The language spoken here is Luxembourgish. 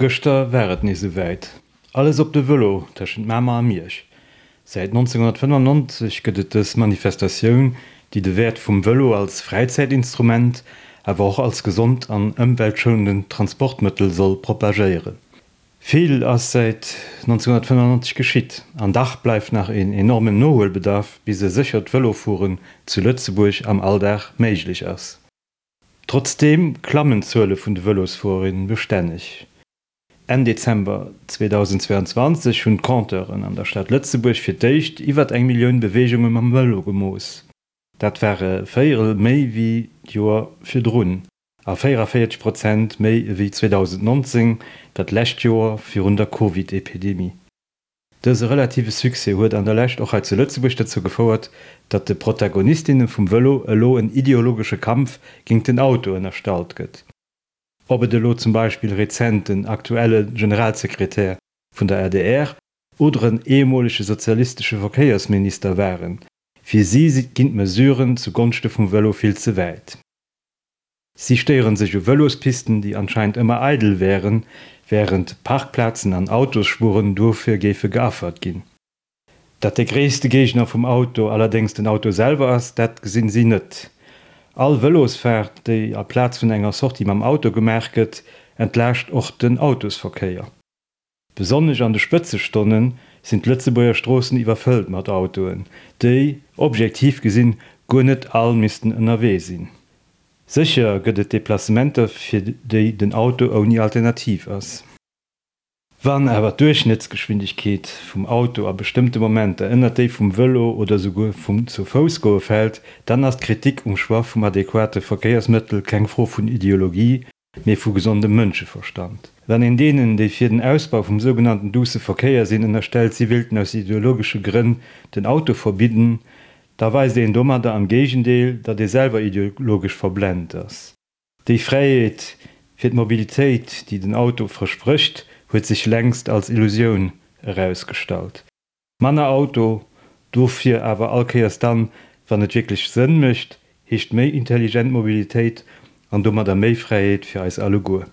Gëschter war et nees esouwäit, Alles op de Vëlo tëschent Mamer a Miersch. Säit 1995 gëtt et dës Manifestatioun, déi de Wäert vum Vëlo als Fräizäitinstrument, awer och als gesond an ëmweltschounend Transportmëttel soll propagéieren. Vill ass säit 1995 geschitt, an dach bleift nach een enormen Nohuelbedarf, bis e séchert Vëlofueren zu Lëtzebuerg am Alldag méiglech ass. Trotzdeem klammen d'Zuele vun de Vëlosfuererinnen bestänneg. Enn Dezember 2022 hunn d'Compteuren an der Stad Lëtzebuerg fir d'éischt iwwer eng Millioun Beweegunge mam Vëlo gemooss. Dat war e Véierel méi wéi d'Joer virdrun a 44 Prozent méi ewéi 2019, dat lescht Joer virun der Covid-Epidemie. Dëse relative Succès huet an der Lescht och hei zu Lëtzebuerg dozou gefouert, datt de Protagonistinne vum Vëlo elo en ideologesche Kampf géingt den Auto ënnerstallt gëtt. Ob et elo zum Beispill rezent den aktuelle Generalsekretär vun der adr oder en ehemolege sozialistesche Verkéiersminister waren, fir si ginn d'Mesuren zu Gonschte vum Vëlo vill ze wäit. Si stéieren sech u Vëlospisten, déi anscheinend ëmmer eidel wären, wärend Parkplazen an Autosspuren dofir géife geaffert ginn. Datt de gréisste Géigner vum Auto allerdéngs den Auto selwer ass, dat gesinn si net. All Vëlosfaart, déi aplaz vun enger Sortie mam Auto gemaach gëtt, entlaascht och den Autosverkéier. Besonnesch an de Spëtzestonne sinn d'Lëtzebuerger Stroossen iwwerfëllt mat Autoen, déi, objektiv gesinn, guer net all missten ënnerwee sinn. Sécher gëtt et Deplacementer, fir déi den Auto ouni Alternativ ass. Wann awer d'Duerchschnëttsgeschwindegkeet vum Auto a bestëmmte Momenter ënnert déi vum Vëlo oder souguer vum Zu-Fouss-Goe fält, dann ass d'Kritik um Choix vum adequate Verkéiersmëttel keng Fro vun Ideologie, mee vu gesondem Mënscheverstand. Wann een deenen, déi fir den Ausbau vum sougenannten douce Verkéier sinn, ënnerstellt, si wéilten aus ideologesche Grënn den Auto verbidden, da weist een domadder am Géigendeel, datt ee selwer ideologesch verblent ass. Déi Fräiheet fir d'Mobilitéit, déi den Auto versprécht, huet sech längst als Illusioun erausgestallt. Manner Auto, dofir awer all Kéiers dann, wann et wierklech Sënn mécht, heescht méi intelligent Mobilitéit an domadder méi Fräiheet fir eis alleguer.